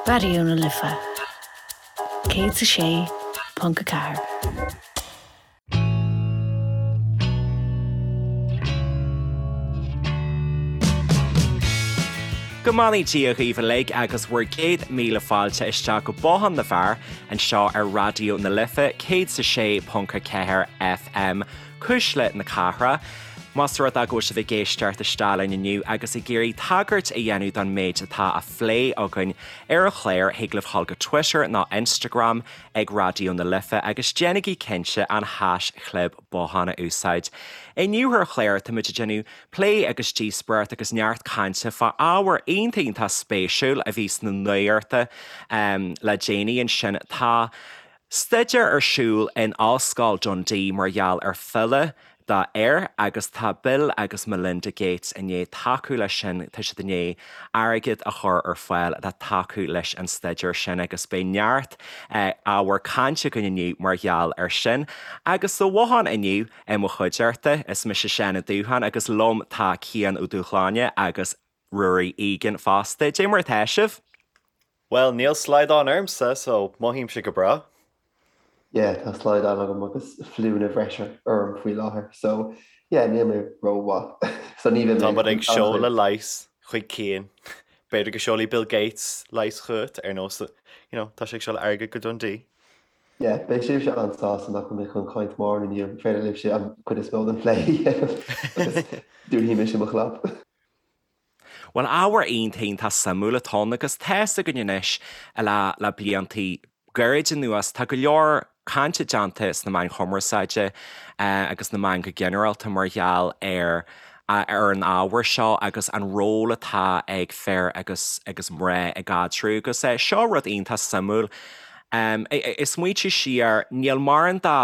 Raidió na Life 106.4. Go mbeannaí Dia dhaoibh uilig agus bhur gcéad míle fáilte isteach go Bothán na bhFear anseo ar Raidió na Life 106.4 FM, Cuisle na Cathrach. Más rud é go bhfuil sibh ag éisteacht isteach linn inniu agus ag iarraidh tagairt a dhéanamh don méid atá á phlé againn ar an chlár, thig libh dhul go Twitter nó Instagram ag Raidió na Life agus déanaigí cinnte an haischlib bothán a úsáid. Inniu ar an chlár táimid ag déanamh plé agus díospóireacht agus neart cainte fá ábhar iontach iontach spéisiúil a bhí sna nuachta le déanaí ansin. Tá. Staidéar ar siúl in Ollscoil Dundee mar gheall ar phiolla do fhir agus tá Bill agus Melinda Gates i ndiaidh tacú leis sin, tá siad i ndiaidh airgead a chur ar fáil le tacú leis an staidéar sin agus beidh neart ábhar cainte againn inniu mar gheall ar sin. Agus sa bhothán inniu i mo chuideachta, is mise Seán Ó Dúcháin agus liom tá Cian Ó Dúshláine agus Ruairí Egan fosta. Dé mar atá sibh? Bhuel, níl slaghdán ormsa, so mothaímse go breá. Yeah, tá slaghdán agam agus fliúnna bhreise orm faoi láthair, so yeah, níl mé rómhaith. So ní bheidh mé Tá muid ag seoladh leigheas chuig Cian. B'fhéidir go seolfaidh Bill Gates leigheas chugat, ar nós, you know, tá sé ag seoladh airgead go Dundee. Yeah, beidh sibhse an-sásta nach bhfuil mé chun caint mórán inniu, féidir libhse an chuid is mó den phlé a dhéanamh agus dúnfaidh mise mo chlab. Bhuel, ábhar iontach iontach suimiúil atá ann agus tá's againn anois le le bliantaí gairid anuas, tá go leor cainte déanta sna meáin chumarsáide agus na meáin go ginearálta mar gheall ar ar an ábhar seo agus an ról atá ag fir agus agus mná i gcaidreamh agus seo rud iontach suimiúil. Ag smaointiú siar, níl mórán de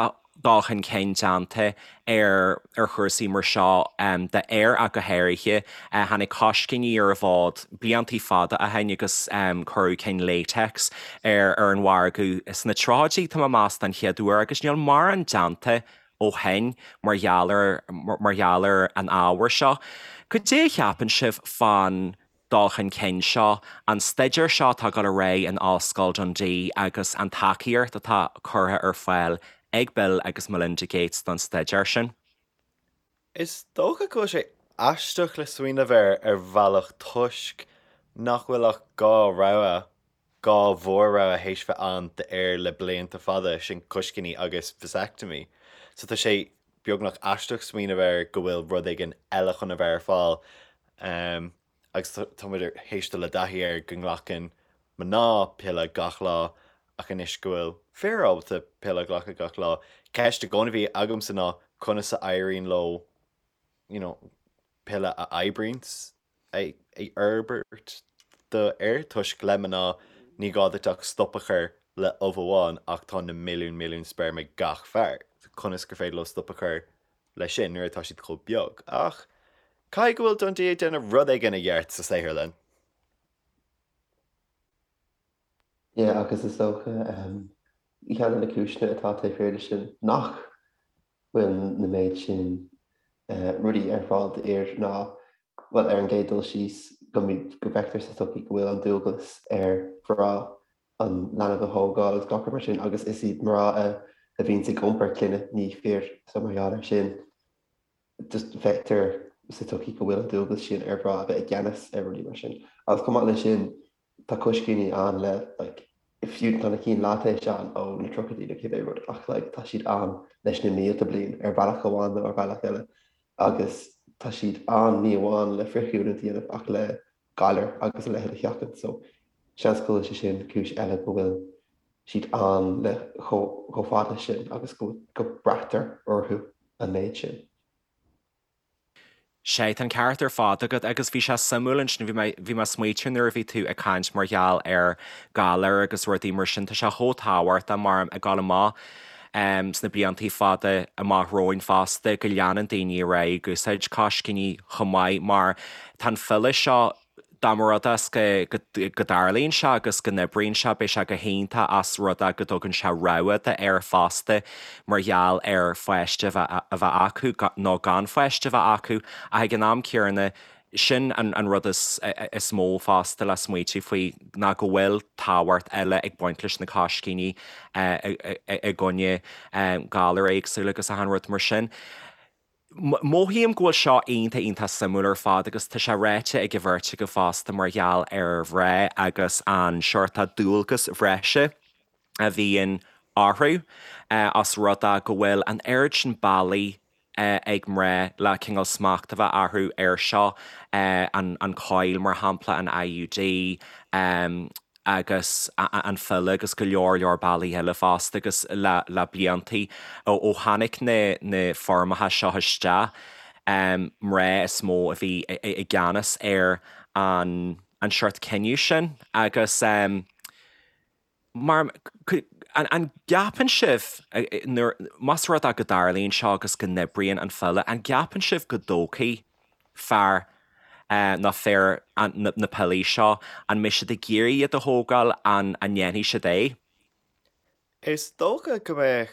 dul chun cinn déanta ar ar chúrsaí mar seo d'fhir ach go háirithe. Tháinig coiscíní ar an bhfód bliantaí fada ó shin agus cuireadh cinn latex ar ar an mhargadh sna tríochaidí, tá mé ag meas, den chéad uair agus níl mórán déanta ó shin mar gheall ar mar gheall ar an ábhar seo. Cad é a cheapann sibh fán dul chun cinn seo, an staidéar seo atá ag dul ar aghaidh in Ollscoil Dundee agus an tacaíocht atá curtha ar fáil ag Bill agus Melinda Gates don staidéar sin. Is dócha go bhfuil sé aisteach le smaoineamh air ar bhealach toisc nach bhfuil ach 2 rogha, 2 mhór-rogha théis bheith ann d'fhir le blianta fada, sin coiscíní agus vasectomy. So tá sé beagnach aisteach smaoineamh air go bhfuil rud éigin eile chun a bheith ar fáil. Agus tá muid théis dul i dtaithí air go nglacann mná piolla gach lá ach anois go bhfuil fir ábalta piolla a ghlacadh gach lá, ceist i gcónaí a bhí agamsa ná conas a éiríonn leo you know piolla a oibríonns a fhorbairt do fhir toisc le mná ní gá duit ach stop a chur le ubh amháin ach tá na milliúin milliúin speirm ag gach fear. Conas gur féidir leo stop a chur leis sin nuair atá siad chomh beag. Ach caithfidh go bhfuil Dundee ag déanamh rud éigin i gceart sa saotharlann. Yeah, agus is dócha ceann de na cúiseanna atá taobh thiar de sin nach bhfuil na méid sin rudaí ar fáil d'fhir ná, bhuel, ar an gcéad dul síos, go go bhfeictear sa tsochaí go bhfuil an dualgas ar mhná an leanbh a thógáil agus gach rud mar sin agus is iad mná a a bhíonns ag iompar clainne, ní fir, so mar gheall air sin just feictear sa tsochaí go bhfuil an dualgas sin ar mhná a bheith i gceannas ar rudaí mar sin. Agus chomh maith leis sin tá coiscíní ann le like fiú tá na cinn laitéis ann ó na tríochaidí nó cibé rud ach like tá siad ann leis na mílte bliain ar bhealach amháin nó ar bhealach eile agus tá siad ann ní amháin le frithghiniúint a dhéanamh ach le galair agus a leithéid a sheachaint so seans go bhfuil sé sin cúis eile go bhfuil siad ann le chomh fada sin agus go go braitear orthu an méid sin. Sea, tá an ceart ar fad agat agus bhí sé suimiúil ansin, bhí mé, bhí mé ag smaoitiú nuair a bhí tú ag caint mar gheall ar ghalair agus rudaí mar sin, tá sé chomh tábhachtach mar ag dul amach sna bliantaí fada amach romhainn fosta go leanann daoine ar aghaidh ag úsáid coiscíní chomh maith mar tá an phiolla seo, dá mba rud é go dtarlaíonn sé agus go n-oibríonn sé, beidh sé go hiontach as rud é go dtugann sé rogha d'fhir fosta mar gheall ar pháiste a bheith acu nó gan pháiste a bheith acu ach ag an am céanna. Sin an rud is mó fosta le smaoitiú faoi ná go bhfuil tábhacht eile ag baint leis na coiscíní i gcoinne galair éagsúla agus achan rud mar sin. Mothaím go bhfuil seo iontach iontach suimiúil ar fad agus tá sé ráite ag an bheirt agaibh fosta mar gheall ar mhná agus an seort dualgas bhreise a bhíonn orthu os rud é go bhfuil an oiread sin bealaí ag mná le cineál smacht a bheith orthu air seo, an choil mar shampla, an IUD, agus an phiolla agus go leor leor bealaí eile fosta agus le le bliantaí ó tháinig na na foirmeacha seo isteach, mná is mó a bhí i gceannas ar an an seort cinneadh sin agus mar an gceapann sibh nuair más rud é go dtarlaíonn seo agus go n-oibríonn an phiolla, an gceapann sibh go dtógfaidh fear nó fir na piollaí seo, an mbeidh siad ag iarraidh iad a thógáil, an ndéanfaidh siad é? Is dócha go mbeadh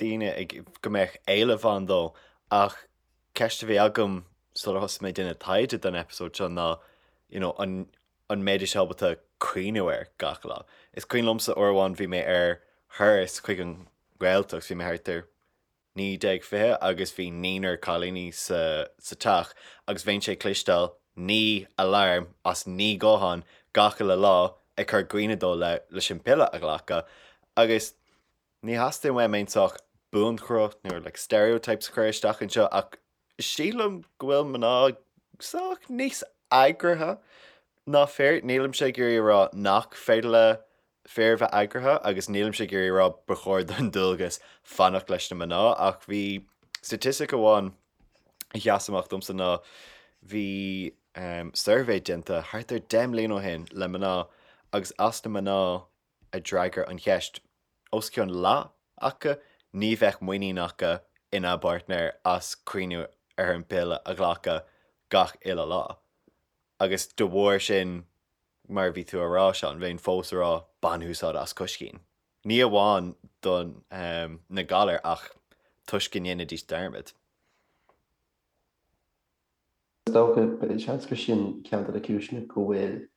daoine ag, go mbeadh éileamh ann dó ach ceist a bhí agam sular thosaigh mé ag déanamh taighde don eipeasóid seo ná you know an an mbeidís ábalta cuimhniú air gach lá. Is cuimhin liomsa uair amháin bhí mé ar thuras chuig an Ghaeltacht, bhí mé thart ar 19, 20 agus bhí naonúr cailíní sa teach agus bheinnse ag cloisteáil naoi alarm as naoi guthán gach uile lá ag cur cuimhne dó le leis an piolla a ghlacadh agus ní theastaíonn uaim aon sórt buanchruth nó like stereotypes a chur isteach anseo ach sílim go bhfuil mná sách níos eagraithe ná fir. Nílimse ag iarraidh a rá nach féidir le fir bheith eagraithe agus nílimse ag iarraidh a rá ba chóir don dualgas fanacht leis na mná ach bhí staitistic amháin a sheas amach domsa ná bhí suirbhé déanta thart ar 10 mbliana ó shin le mná agus as na mná a d'fhreagair an cheist, os cionn leath acu, ní bheadh muinín acu ina bpáirtnéir as cuimhniú ar an bpiolla a ghlacadh gach uile lá. Agus de bharr sin, mar a bhí tú a rá, Seán, bheinn fós a rá bain úsáid as coiscín. Ní amháin do na galair ach toisc go ndéanfaidís dearmad. Is dócha, seans gur sin ceann de na cúiseanna go bhfuil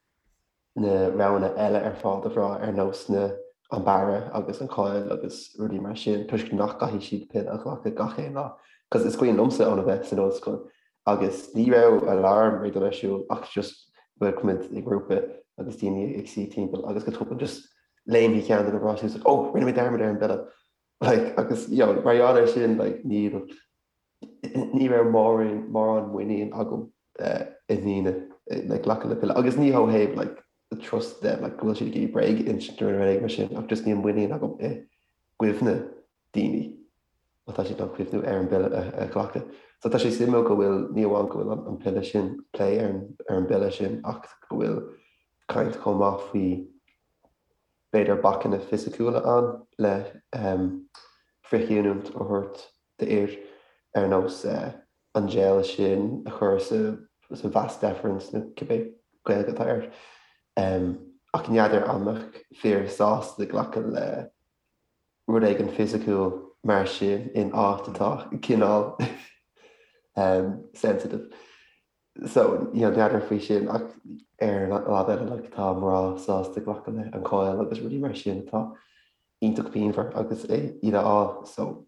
na roghanna eile ar fáil do mhná ar nós na an bearradh agus an choil agus rudaí mar sin toisc nach gcaithfidh siad piolla a ghlacadh gach aon lá. Cos is cuimhin liomsa óna bheith san ollscoil agus ní raibh alarm ag dul ar siúl ach just bheadh muid i ngrúpa agus daoine ag suí timpeall agus go tobann just léimfidh ceann de na mná suas like oh rinne mé dearmad ar an bpiolla like agus you know mar gheall air sin like níl ní raibh mórán mórán muinín agam i ndaoine like glacadh le piolla agus ní ó thaobh like trust them like go bhfuil siad ag iarraidh bréag a insint nó rud éigin mar sin ach just níl muinín agam i gcuimhne daoine má tá siad in ann cuimhniú ar an bpiolla a ghlacadh. So tá sé suimiúil go bhfuil, ní amháin go bhfuil an piolla sin, plé ar an bpiolla sin ach go bhfuil caint chomh maith faoi b'fhéidir bacanna fisiciúla ann le frithghiniúint a thabhairt d'fhir ar nós an gel sin a chur sa vas deferens nó cibé Gaeilge atá air. Ach n'fheadar an mbeadh fir sásta glacadh le rud éigin fisiciúil mar sin in áit atá cineál sensitive. So, you know, n'fheadar faoi sin ach ar an lámh eile like tá mná sásta glacadh le an choil agus rudaí mar sin atá iontach pianmhar agus é iad a fháil. So,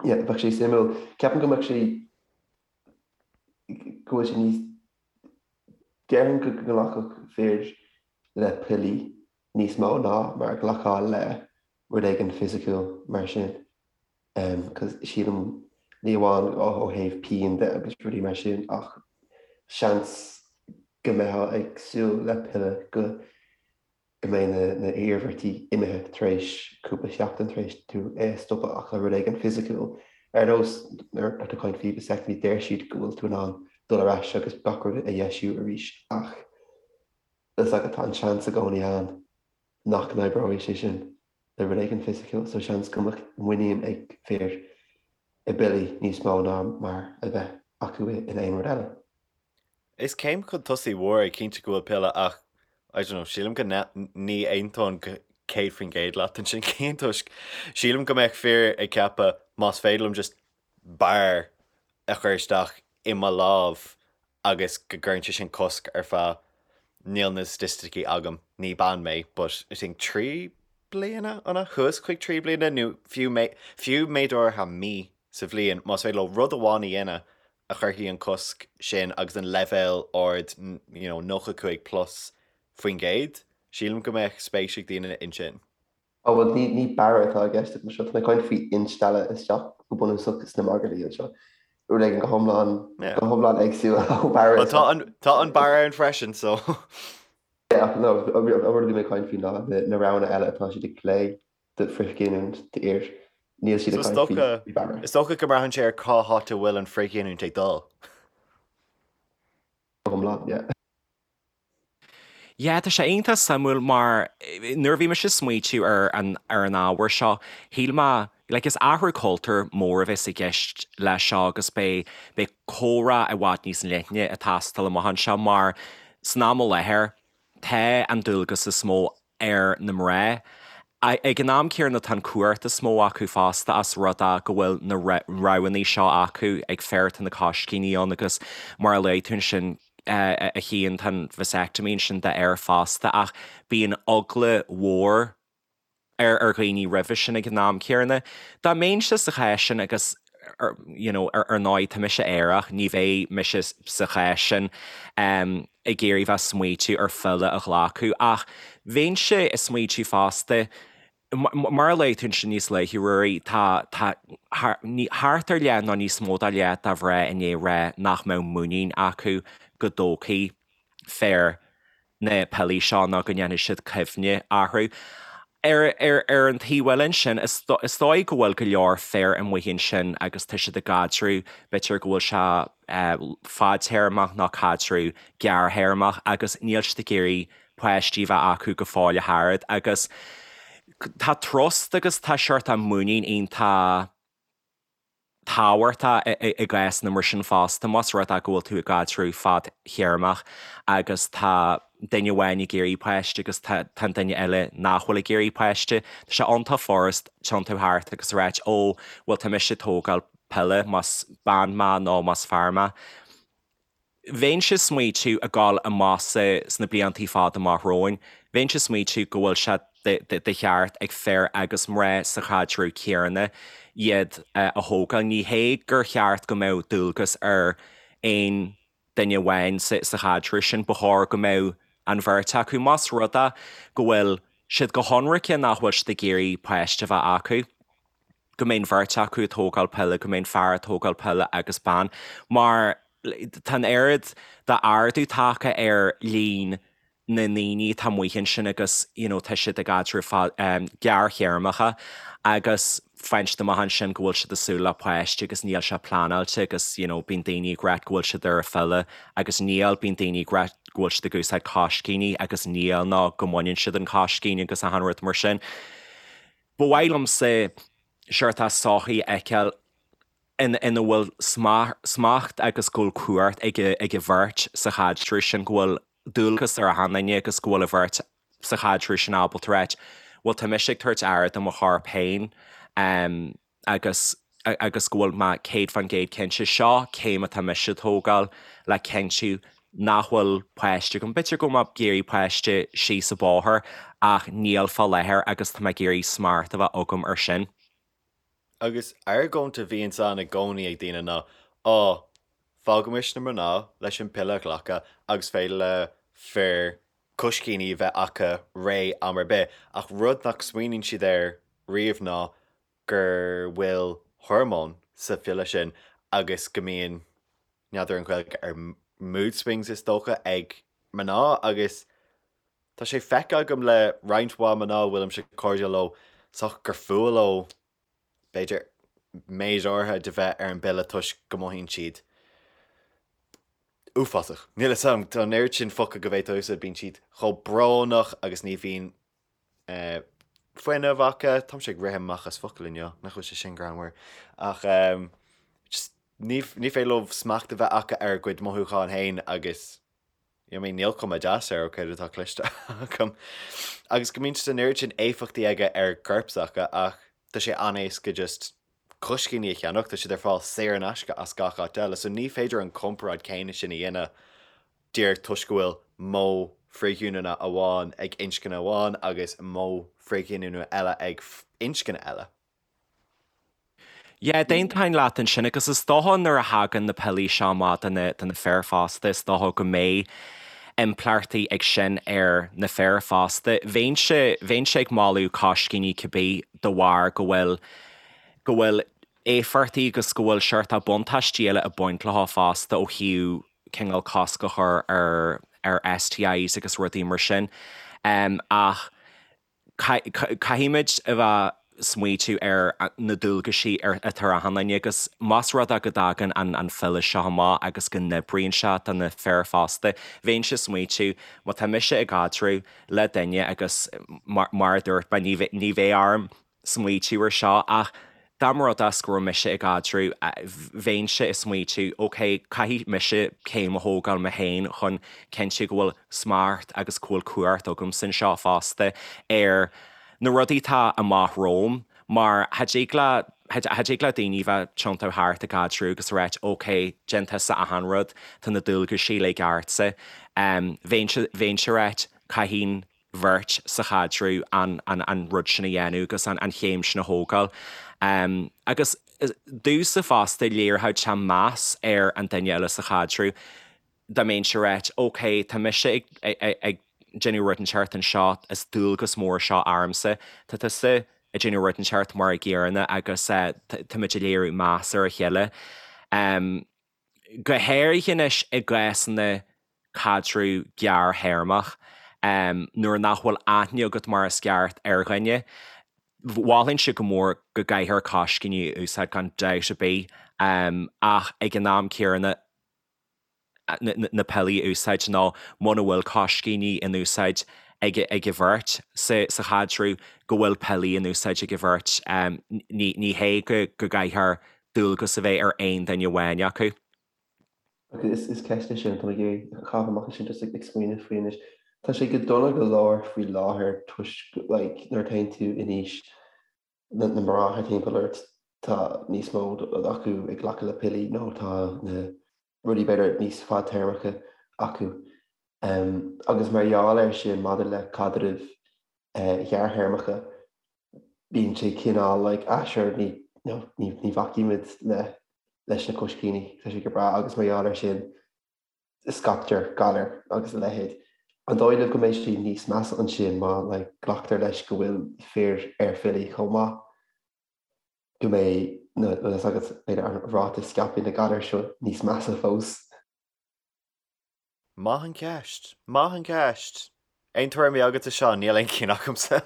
yeah, bheadh sé suimiúil. Ceapaim go mbeadh sé go bhfuil sé níos déarfainn go nglacfadh fir le piollaí níos mó ná mar a ghlacfá le rud éigin fisiciúil mar sin. Cos sílim ní amháin ó thaobh pian de agus rudaí mar sin ach seans go mbeifeá ag súil le piolla go go mbeidh na na hiarmhairtí imithe tar éis cúpla seachtain tar éis tú é a stopadh ach le rud éigin fisiciúil ar nós nuair atá tú ag caint faoi vasectomy deir siad go bhfuil tú in ann dul ar ais agus gach rud a dheisiú arís ach Is agat tá an seans i gcónaí ann nach n-oibreoidh sé sin le rud éigin fisiciúil, so seans go mbeadh muinín ag fir i bpiollaí níos mó ná mar a bheadh acu in aon rud eile. Is céim chun tosaigh mhór é cinnte go bhfuil piolla ach, I don't know, sílim go ní aontóinn go 100% leat ansin Cian toisc sílim go mbeadh fir ag ceapadh más féidir liom just barr a chur isteach i mo lámh. agus go gcuireann sé sin cosc ar feadh, níl na staitisticí agam, ní bean mé, but I think 3 bliana, an ea? Suas chuig 3 bliana nó fiú fiú méid áirithe mí sa bhliain, más féidir leo rud amháin a dhéanamh a chuirfidh an cosc sin agus an leibhéal ard, you know, 95 plus faoin gcéad, sílim go mbeadh spéis ag daoine ansin. Ó bhuel ní ní barra atá i gceist agam anseo, tá mé ag caint faoi instealladh isteach go bunúsach sna magairlí anseo. Rud éigin go hiomlán go hiomlán éagsúil ó barra Well tá an tá an barra ann freisin so. Yeah ach no an rud a bhí mé ag caint faoi ná na roghanna eile atá siad ag plé do frithghiniúint d'fhir. Níl siad ag caint faoi barra. Is dócha go mbraitheann sé ar cá háit a bhfuil an frithghiniúint ag dul. Go hiomlán, yeah. Yeah, tá sé iontach suimiúil mar nuair a bhí mise ag smaoitiú ar an ar an ábhar seo, shíl mé, like is athrú cultúir mór a bheas i gceist leis seo agus beidh beidh comhrá i bhfad níos leithne ag teastáil amach anseo mar san am i láthair tá an dualgas is mó ar na mná. Ag an am céanna tá an cumhacht is mó acu fosta as rud é go bhfuil na roghanna seo acu ag fir tá na coiscíní ann agus mar a luaigh tú ansin a Chian tá an vasectomy ansin d'fhir fosta ach bíonn eagla mhór ar ar dhaoine roimhe sin ag an am céanna. Dá mbeinnse sa chás sin agus you know ar ndóigh tá mise aerach ní bheidh mise sa chás sin ag iarraidh bheith smaoitiú ar phiolla a ghlacadh ach bheinnse ag smaoitiú fosta mar a luaigh tú ansin níos luaithe Ruairí tá tá thart ar leath nó níos mó ná leath de mhná i ndiaidh rá nach mbeadh muinín acu go dtógfaidh fir na piollaí seo nó go ndéanfaidh siad cuimhne orthu. Ar ar an taobh eile ansin, is dóigh go bhfuil go leor fir amuigh ansin agus tá siad i gcaidreamh, b'fhéidir go bhfuil sé fadtéarmach nó caidreamh gearrthéarmach agus níl siad ag iarraidh páistí a bheith acu go fóill ach oiread agus tá trust agus tá seort muinín iontach tábhachtach i gcásanna mar sin fosta, más rud é go bhfuil tú i gcaidreamh fadtéarmach agus tá duine amháin ag iarraidh páiste agus tá an duine eile nach bhfuil ag iarraidh páiste, tá sé iontach furast tiontú thart agus a ráit 'ó, bhuel tá mise ag tógáil piolla, más bean mé nó más fear mé. Bheinnse ag smaoitiú ag gabháil amach sna bliantaí fada amach romhainn, bheinnse ag smaoitiú go bhfuil sé de cheart ag fir agus mná sa chaidreamh céanna iad a thógáil. Ní hé gur cheart go mbeadh dualgas ar aon duine amháin sa chaidreamh sin, ba chóir go mbeadh an bheirt acu, más rud é go bhfuil siad go hionraice nach bhfuil siad ag iarraidh páiste a bheith acu. go mbeidh an bheirt acu ag tógáil piolla, go mbeidh an fear ag tógáil piolla agus bean, mar tá an oiread d'ardú tagtha ar líon na ndaoine atá amuigh ansin agus you know tá siad i gcaidrimh gearrthéarmacha agus faigheann siad amach ansin go bhfuil siad ag súil le páiste agus níl sé pleanáilte agus you know bíonn daoine ag ráit go bhfuil siad ar an phiolla agus níl, bíonn daoine ag ráit go bhfuil siad ag úsáid coiscíní agus níl nó go mbaineann siad an coiscín agus achan rud mar sin. Ba mhaith liomsa seort sochaí a fheiceáil ina bhfuil smacht agus go bhfuil cumhacht ag an bheirt sa chaidreamh sin, go bhfuil dualgas ar achan duine agus go bhfuil an bheirt sa chaidreamh sin ábalta ráit, bhuel tá mise ag tabhairt aire do mo chorp féin agus agus go bhfuil mé 100% cinnte, seo céim atá mise a tógáil le cinntiú nach bhfuil páiste agam. B'fhéidir go bhfuil mé ag iarraidh páiste síos an bóthar ach níl fá láthair agus tá mé ag iarraidh smacht a bheith agam ar sin. Agus argóint a bhíonns ann i gcónaí ag daoine ná, á, fágaimis na mná leis an piolla a ghlacadh agus féidir le fir coiscíní a bheith acu réidh am ar bith. Ach rud nach smaoiníonn siad air riamh ná gur bhfuil hormóin sa phiolla sin agus go mbíonn, n'fheadar an Ghaeilge ar mood swings is dócha, ag mná agus tá sé feicthe agam le roinnt mhaith mná a bhfuilimse cairdiúil leo sách gur fuath leo b'fhéidir méid áirithe de bheith ar an bpiolla toisc go mothaíonn siad uafásach. Níl a fhios agam, tá an oiread sin focal go bhféadfá a úsáid, bíonn siad chomh brónach agus ní bhíonn fuinneamh acu. Táimse ag rith amach as focail inniu, nach bhfuil sé sin greannmhar. Ach just ní ní féidir leo smacht a bheith acu ar a gcuid mothúchán féin agus I mean níl cuma deas air ó céard atá cloiste agam. Agus go mbíonn an oiread sin éifeachtaí aige ar gcorp s'acu ach tá sé an-éasca just. coiscíní a cheannach, tá siad ar fáil saor in aisce as gach áit eile, so ní féidir an comparáid céanna sin a dhéanamh díreach toisc go bhfuil modh frithghiniúna amháin ag inscne amháin agus modh frithghiniúna eile ag inscne eile. Yeah, d'aontóinn leat ansin agus is dócha nuair a thagann na piollaí seo amach do na, do na fir fosta, is dócha go mbeidh impleachtaí ag sin ar na fir fosta. Bheinnse, bheinnse ag moladh coiscíní cibé de bharr go bhfuil, go bhfuil éifeachtaí agus go bhfuil seort buntáistí eile ag baint leo fosta ó thaobh cineál cosc a chur ar, ar STIs agus rudaí mar sin. Ach Caithfimid a bheith smaoitiú ar na dualgaisí atá ar achan duine agus más rud é go dtagann an phiolla seo amach agus go n-oibríonn sé do na fir fosta, bheinnse ag smaoitiú, má tá mise i gcaidreamh le duine agus mar a dúirt mé, ní bheidh orm smaoitiú ar seo ach dá mba rud é go raibh mise i gcaidreamh, bheinnse ag smaoitiú, ok, caithfidh mise céim a thógáil mé féin chun cinntiú go bhfuil smacht agus go bhfuil cumhacht agamsa anseo fosta ar na rudaí atá amach romham mar cha dtig le, cha dtig le daoine bheith tiontú thart i gcaidreamh agus a ráit, ok, déan tusa achan rud, tá na dualgaisí uilig ortsa. Bheinnse, bheinnse ag ráit, caithfidh an bheirt sa chaidreamh an an rud sin a dhéanamh agus an chéim sin a thógáil. Agus domhsa fosta, léireodh sé meas ar an duine eile sa chaidreamh dá mbeinnse ag ráit, ok, tá mise ag ag déanamh rud inteacht anseo, is dualgas mór seo ormsa, tá tusa ag déanamh rud inteacht mar an gcéanna agus táimid ag léiriú meas ar a chéile. Go háirithe anois i gcásanna caidreamh gearrthéarmach, nuair nach bhfuil aithne agat mar is ceart ar dhuine. Mholfainnse go mór go gcaithfear coiscíní a úsáid gan dabht ar bith, ach ag an am céanna na piollaí a úsáid nó muna bhfuil coiscíní in úsáid ag an bheirt sa chaidreamh, go bhfuil piollaí in úsáid ag an bheirt. Ní hé go gcaithfear dualgas a bheith ar aon duine amháin acu. Agus is ceist é sin atá mé ag iarraidh a chaitheamh amach ansin just ag smaoineamh faoi anois. Tá sé go dona go leor faoi láthair toisc like nuair a théann tú in aois na na mná thart timpeall ort tá níos mó acu ag glacadh le piollaí nó tá na rudaí b'fhéidir níos fadtéarmacha acu. Agus mar gheall air sin maidir le caidrimh ghearrthéarmacha bíonn sé cineál like ah sure ní you know ní ní bhacfaimid le leis na coiscíní, tá sé go breá agus mar gheall air sin scaiptear galair agus a leithéid. An dóigh libh go mbeidh sé níos measa ansin má like glactar leis go bhfuil fir ar phiollaí chomh maith, go mbeidh na bhfuil fhios agat b'fhéidir an ráta scaipthe na galair seo níos measa fós? Maith an ceist. Maith an ceist. Aon tuairimí agatsa, Seán? Níl aon cinn agamsa.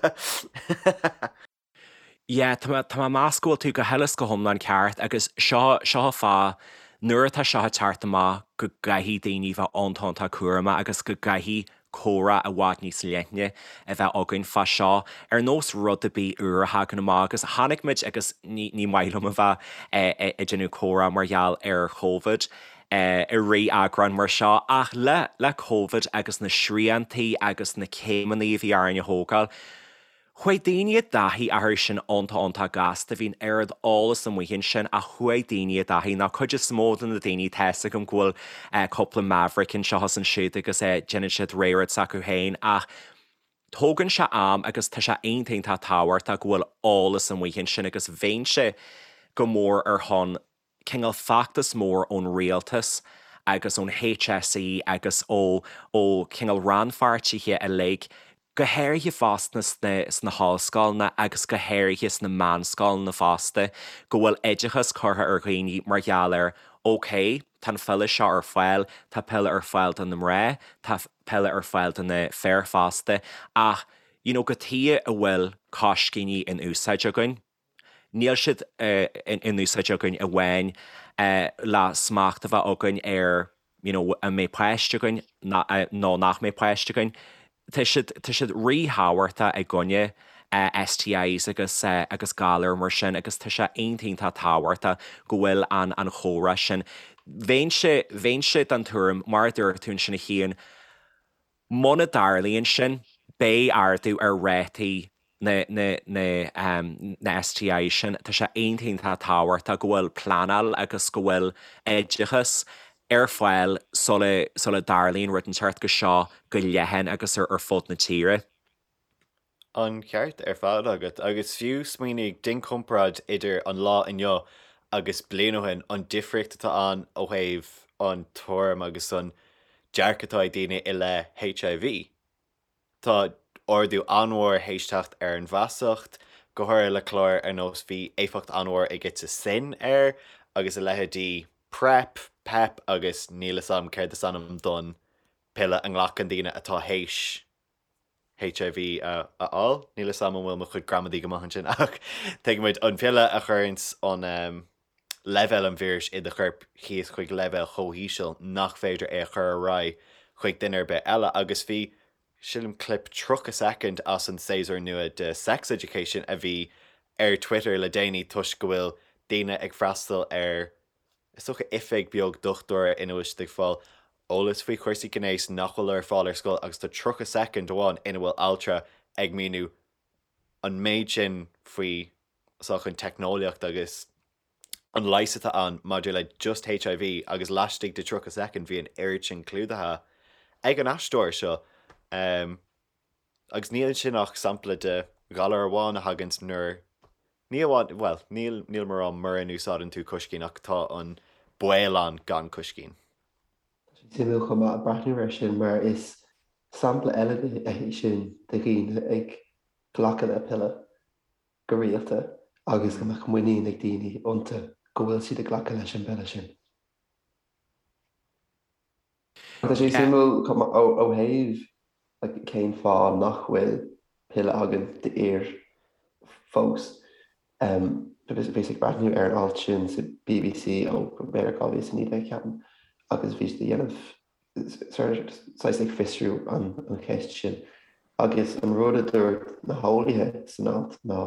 Yeah, tá mé, tá mé ag meas go bhfuil tú go huile is go hiomlán ceart agus seo, seo an fáth, nuair atá seo ag teacht amach go gcaithfidh daoine bheith iontach iontach cúramach agus go gcaithfidh comhrá i bhfad níos leithne a bheith againn fá seo, ar nós rud ar bith úr a thagann amach agus chonaic muid agus ní, ní maith liom a bheith ag déanamh comhrá mar gheall ar Covid i rith eagrán mar seo ach le, le Covid agus na sriantaí agus na céimeanna a bhí orainn a thógáil, Chuaigh daoine i dtaithí orthu sin iontach iontach gasta, bhí an oiread eolas amuigh ansin ach chuaigh daoine i dtaithí, nó cuid is mó de na daoine, tá fhios agam go bhfuil cúpla maverick anseo is ansiúd agus déanann siad rogha rud s'acu féin ach tógann sé am agus tá sé iontach iontach tábhachtach go bhfuil eolas amuigh ansin agus bheinnse go mór ar shon cineál feachtas mór ón rialtas agus ón HSE agus ó ó cineál rannpháirtithe uilig, go háirithe fosta sna sna hollscoileanna agus go háirithe sna meánscoileanna fosta, go bhfuil oideachas curtha ar dhaoine mar gheall ar ok, tá an phiolla seo ar fáil, tá piolla ar fáil do na mná, tá piolla ar fáil do na fir fosta ach you know cad chuige a bhfuil coiscíní in úsáid againn. Níl siad in úsáid againn amháin le smacht a bheith againn ar you know an mbeidh páiste againn nó nach mbeidh páiste againn. Tá siad, tá siad ríthábhachtach i gcoinne STIs agus agus galair mar sin agus tá sé iontach iontach tábhachtach go bhfuil an an chomhrá sin. Bheinnse, bheinnse den tuairim, mar a dúirt tú ansin a Chian, Muna dtarlaíonn sin, beidh ardú ar rátaí. Na na na na STI sin, tá sé iontach iontach tábhachtach go bhfuil pleanáil agus go bhfuil oideachas ar fáil sula sula dtarlaíonn rud inteacht de seo go leathan agus ar ar fud na tíre. An ceart ar fad agat. Agus fiú smaoinigh, déan comparáid idir an lá inniu agus bliain ó shin, an difríocht atá ann ó thaobh an tuairim agus an dearcadh atá ag daoine i leith HIV. Tá ardú an-mhór théis teacht ar an bhfeasacht, go háirithe le cláir ar nós bhí éifeacht an-mhór ag It's a Sin air agus a leithéidí PrEP, PEP agus níl 'fhios a'm céard is ainm don piolla a nglacann daoine atá théis HIV a fháil. Níl 'fhios a'm an bhfuil mo chuid gramadaí go maith ansin ach tuigimid an piolla a chuireanns an leibhéal an víris i do chorp thíos chuig leibhéal chomh híseal nach féidir é a chur ar aghaidh chuig duine ar bith eile agus bhí, sílim, clip 30 soicind as an séasúr nua de Sex Education a bhí ar Twitter le déanaí toisc go bhfuil daoine ag freastal ar, is dócha, oifig beag dochtúra ina bhfuil siad ag fáil eolas faoi chúrsaí gnéis nach bhfuil ar fáil ar scoil agus tá 30 soicind amháin ina bhfuil altra ag míniú an méid sin faoi sách an teicneolaíocht agus an leigheas atá ann maidir le just HIV agus laistigh de 30 soicind bhí an oiread sin clúdaithe ag an aisteoir seo. Agus níl sin ach sampla de ghalar amháin a thaganns nuair, ní amháin, bhuel, níl, nílim ag rá mura n-úsáideann tú coiscín ach tá an baol ann gan coiscín. Tá sé suimiúil chomh maith breathnú air sin mar is sampla eile é sin de dhaoine ag glacadh le piolla go rialta agus go mbeadh muinín ag daoine iontu go bhfuil siad ag glacadh leis an bpiolla sin. Tá sé suimiúil chomh maith ó thaobh cén fáth nach bhfuil piolla againn d'fhir fós. Bhíos ag breathnú ar an alt sin sa bbc ó b'fhéidir 2019 ceapaim agus bhí siad ag déanamh saghas ag fiosrú an cheist sin agus an rud a dúirt na heolaithe san alt ná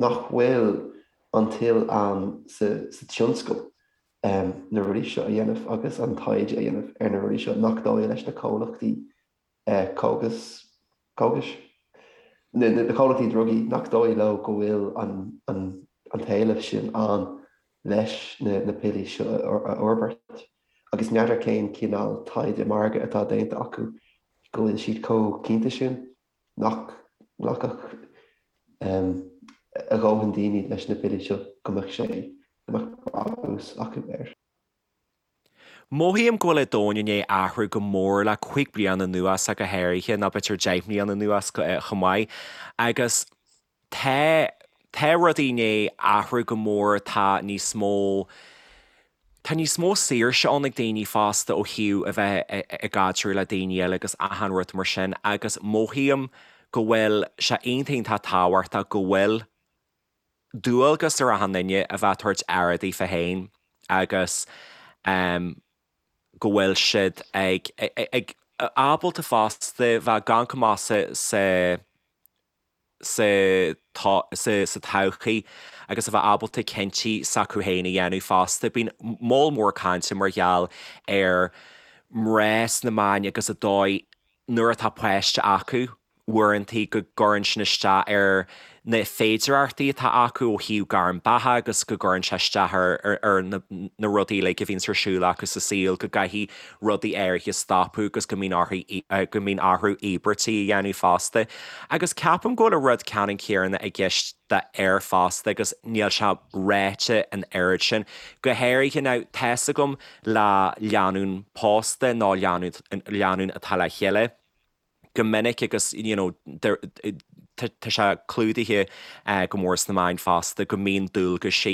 nach bhfuil an toil ann sa tionscal na rudaí seo a dhéanamh agus an taighde a dhéanamh ar na rudaí seo, nach dóigh leis na comhlachtaí cógas, cógais, na comhlachtaí drugaí, nach dóigh leo go bhfuil an t-éileamh sin ann leis na piollaí seo a fhorbairt. Agus n'fheadar cén cineál taighde margaidh atá déanta acu go bhfuil siad chomh cinnte sin nach nglacfadh a dhóthain daoine leis na piollaí seo go mbeadh sé, go mbeadh brabús acu air. Mothaím go bhfuil an domhan i ndiaidh athrú go mór le 5 bliana anuas ach go háirithe, nó b'fhéidir 10 mbliana anuas chomh maith. Agus tá, tá rudaí i ndiaidh athrú go mór, tá níos mó, tá níos mó saoirse ann ag daoine fosta ó thaobh a bheith i gcaidreamh le daoine eile agus achan rud mar sin agus mothaím go bhfuil sé iontach iontach tábhachtach go bhfuil dualgas ar achan duine a bheith ag tabhairt aire daofa féin agus go bhfuil siad ag ag ábalta fosta bheith ag amharc amach sa sa sa sa todhchaí agus a bheith ábalta cinntí s'acu féin a dhéanamh fosta. Bíonn moll mór cainte mar gheall ar mná sna meáin agus an dóigh nuair atá páiste acu, uaireanta go gcuireann sin isteach ar na féidireachtaí atá acu ó thaobh gairm beatha agus go gcuireann sé isteach ar na rudaí uilig a bhíonns ar siúl acu sa saol, go gcaithfidh rudaí áirithe stopadh agus go mbíonn orthu go mbíonn orthu íobairtí a dhéanamh fosta. Agus ceapaim go bhfuil an rud ceannann céanna i gceist d'fhir fosta agus níl sé ráite an oiread sin, go háirithe now tá's agam le lánúin pósta nó lánúin atá le chéile. go minic agus you know tá sé clúdaithe go mór sna meáin fosta go mbíonn dualgaisí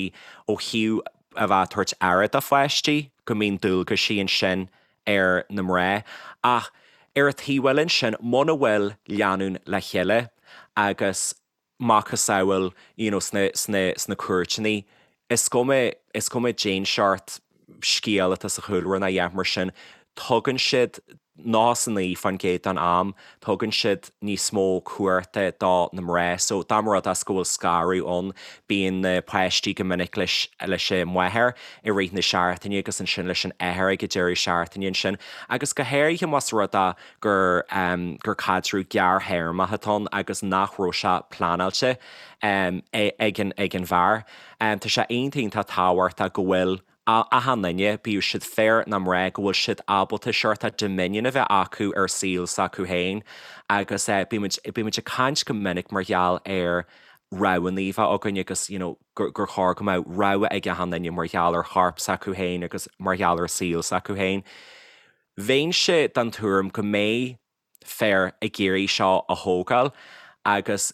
ó thaobh a bheith ag tabhairt aire do pháistí, go mbíonn dualgaisí ansin ar na mná. Ach ar an taobh eile ansin, muna bhfuil lánúin le chéile agus macasamhail you know sna sna sna cúirteanna, is cuma is cuma cén seort scéal atá sa chúlra nó a dhath mar sin, tugann siad. 99% den am, tugann siad níos mó cumhachta do na mná. So, dá mba rud é go bhfuil scaradh ann, bíonn na páistí go minic leis leis an máthair i rith na seachtaine agus ansin leis an athair ag an deireadh seachtaine ansin. Agus go háirithe más rud é gur gur caidreamh gearrthéarmach atá ann agus nach raibh sé pleanáilte ag an ag an bhfear. Tá sé iontach iontach tábhachtach go bhfuil achan duine, bíodh siad fir nó mná, go bhfuil siad ábalta seort dominion a bheith acu ar saol s'acu féin agus bímid, bímid ag caint go minic mar gheall ar roghanna a bheith againn agus you know gur, gur chóir go mbeadh rogha ag achan duine mar gheall ar chorp s'acu féin agus mar gheall ar saol s'acu féin. Bheinnse den tuairim go mbeidh fir ag iarraidh seo a thógáil agus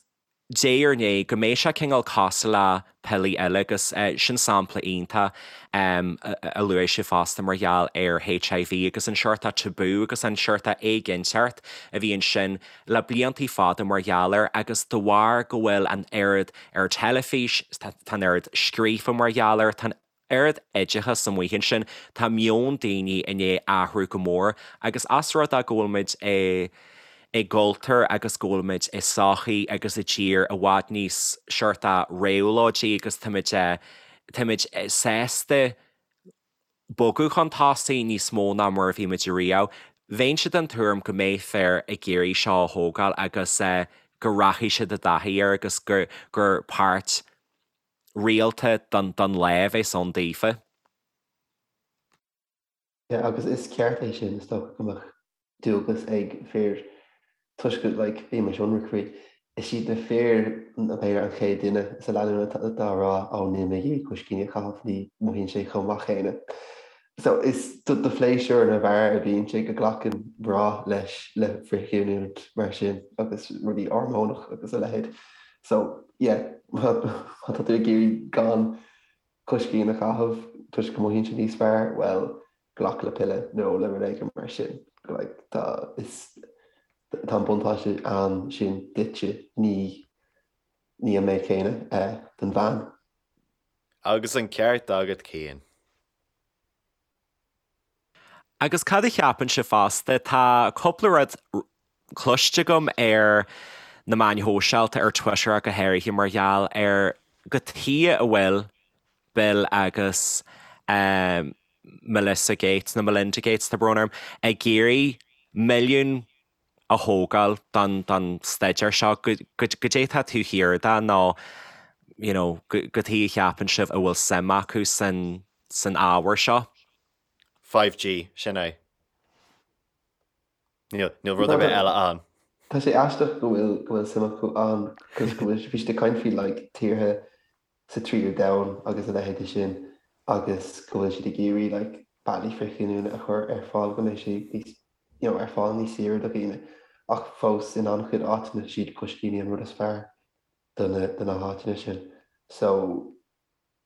diaidh ar ndiaidh, go mbeidh sé cineál cosúil le piollaí eile agus sin sampla iontach a luaigh sibh fosta mar gheall ar HIV agus an seort tabú agus an seort éiginnteacht a bhí ansin le bliantaí fada mar gheall air agus de bharr go bhfuil an oiread ar teilifís, tá an oiread scríofa mar gheall air, tá an. oiread oideachas amuigh ansin, tá meon daoine i ndiaidh athrú go mór agus as rud é go bhfuil muid i i gcultúr agus go bhfuil muid i sochaí agus i dtír i bhfad níos seort réabhlóidí agus táimid táimid sásta bogadh chun tosaigh níos mó ná mar a bhí muid ariamh. Bheinnse den tuairim go mbeidh fir ag iarraidh seo a thógáil agus go rachaidh siad i dtaithí air agus gur gur páirt rialta don lá a bheas ann daofa. Yeah, agus is ceart é sin, is dócha go mbeadh dualgas ag fir toisc go, like, bímis ionraic faoi, is iad na fir b'fhéidir an chéad duine sa lánúin atá á rá, ó níl mé ag iarraidh coiscíní a chaitheamh, ní mothaíonn sé chomh maith céanna. So is do phléisiúr na bhfear a bhíonn sé go nglacann mná leis le frithghiniúint mar sin agus rudaí hormónach agus a leithéid. So yeah, má tá tú ag iarraidh gan coiscín a chaitheamh toisc go mothaíonn sé níos fearr, bhuel, glac le piolla nó le rud éigin mar sin. Like, tá, is, tá an buntáiste ann sin duitse, ní, ní an méid céanna don bhean. Agus an ceart agat Cian. Agus cad a cheapann sibh fosta? Tá cúpla rud cloiste agam ar na meáin shóisialta, ar Twitter ach go háirithe, mar gheall ar cad chuige a bhfuil Bill agus Melissa Gates, nó Melinda Gates, tá brón orm, ag iarraidh milliún a thógáil don don staidéar seo, goidé atá taobh thiar de nó you know cad chuige a cheapann sibh a bhfuil suim acu san san ábhar seo? 5G, sin é. Níl níl rud ar bith eile ann. Tá sé aisteach go bhfuil go bhfuil suim acu ann cos go bhfuil bhí siad ag caint faoi like tíortha sa tríú domhan agus a leithéid de sin agus go bhfuil siad ag iarraidh like bealaí frithghiniúna a chur ar fáil go mbeidh sé níos you know ar fáil níos saoire do dhaoine ach fós in an-chuid áiteanna is iad coiscíní an rud is fearr do na do na háiteanna sin so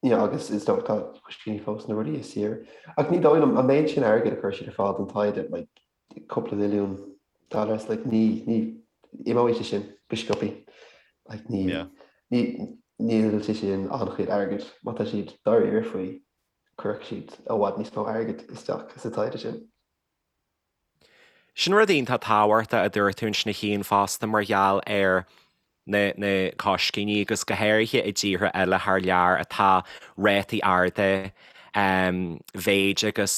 you know agus is dócha tá coiscíní fós na rudaí is saoire ach ní dóigh liom an méid sin airgid a chuir siad ar fáil don taighde like cúpla milliún dollars like ní ní imeoidh sé sin go sciobtha like ní yeah. ní níl sé sin an-chuid airgid má tá siad dáiríre faoi cuirfidh siad i bhfad níos mó airgid isteach sa taighde sin. Sin rud iontach tábhachtach a dúirt tú ansin a Chian fosta mar gheall ar na na coiscíní agus go háirithe i dtíortha eile thar lear atá rátaí arda mhéid agus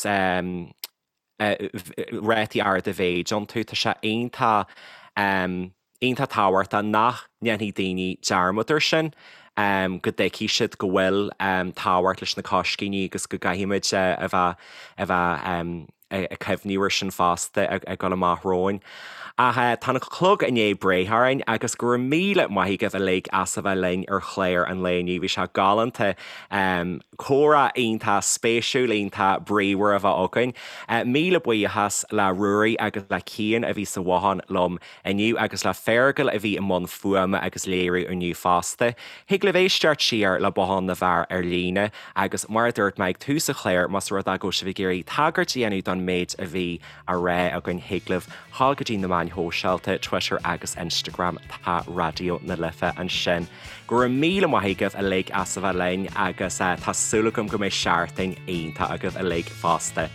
rátaí arda mhéid iontu. Tá sé iontach, iontach tábhachtach nach ndéanfaidh daoine dearmad air sin, go dtuigfidh siad go bhfuil tábhacht leis na coiscíní agus go gcaithfimid a bheith, a bheith ag cuimhniú air sin fosta ag dul amach romhainn. Ach tá an clog i ndiaidh breith orainn agus go raibh míle maith agaibh uilig as a bheith linn ar chlár an lae inniu. Bhí sé galánta. Comhrá iontach spéisiúil, iontach bríomhar a bheith againn. Míle buíochas le Ruairí agus le Cian a bhí sa bhothán liom inniu agus le Fergal a bhí i mbun fuaime agus léiriú inniu fosta. Thig libh éisteacht siar le Bothán na bhFear ar líne agus mar a dúirt mé ag tús an chláir, más rud é go bhfuil sibh ag iarraidh tagairt a dhéanamh don méid a bhí á rá againn thig libh dhul go dtí na meáin shóisialta, Twitter agus Instagram, tá Raidió na Life ansin. Go raibh míle maith agaibh uilig as a bheith linn agus tá súil agam go mbeidh seachtain iontach agaibh uilig fosta.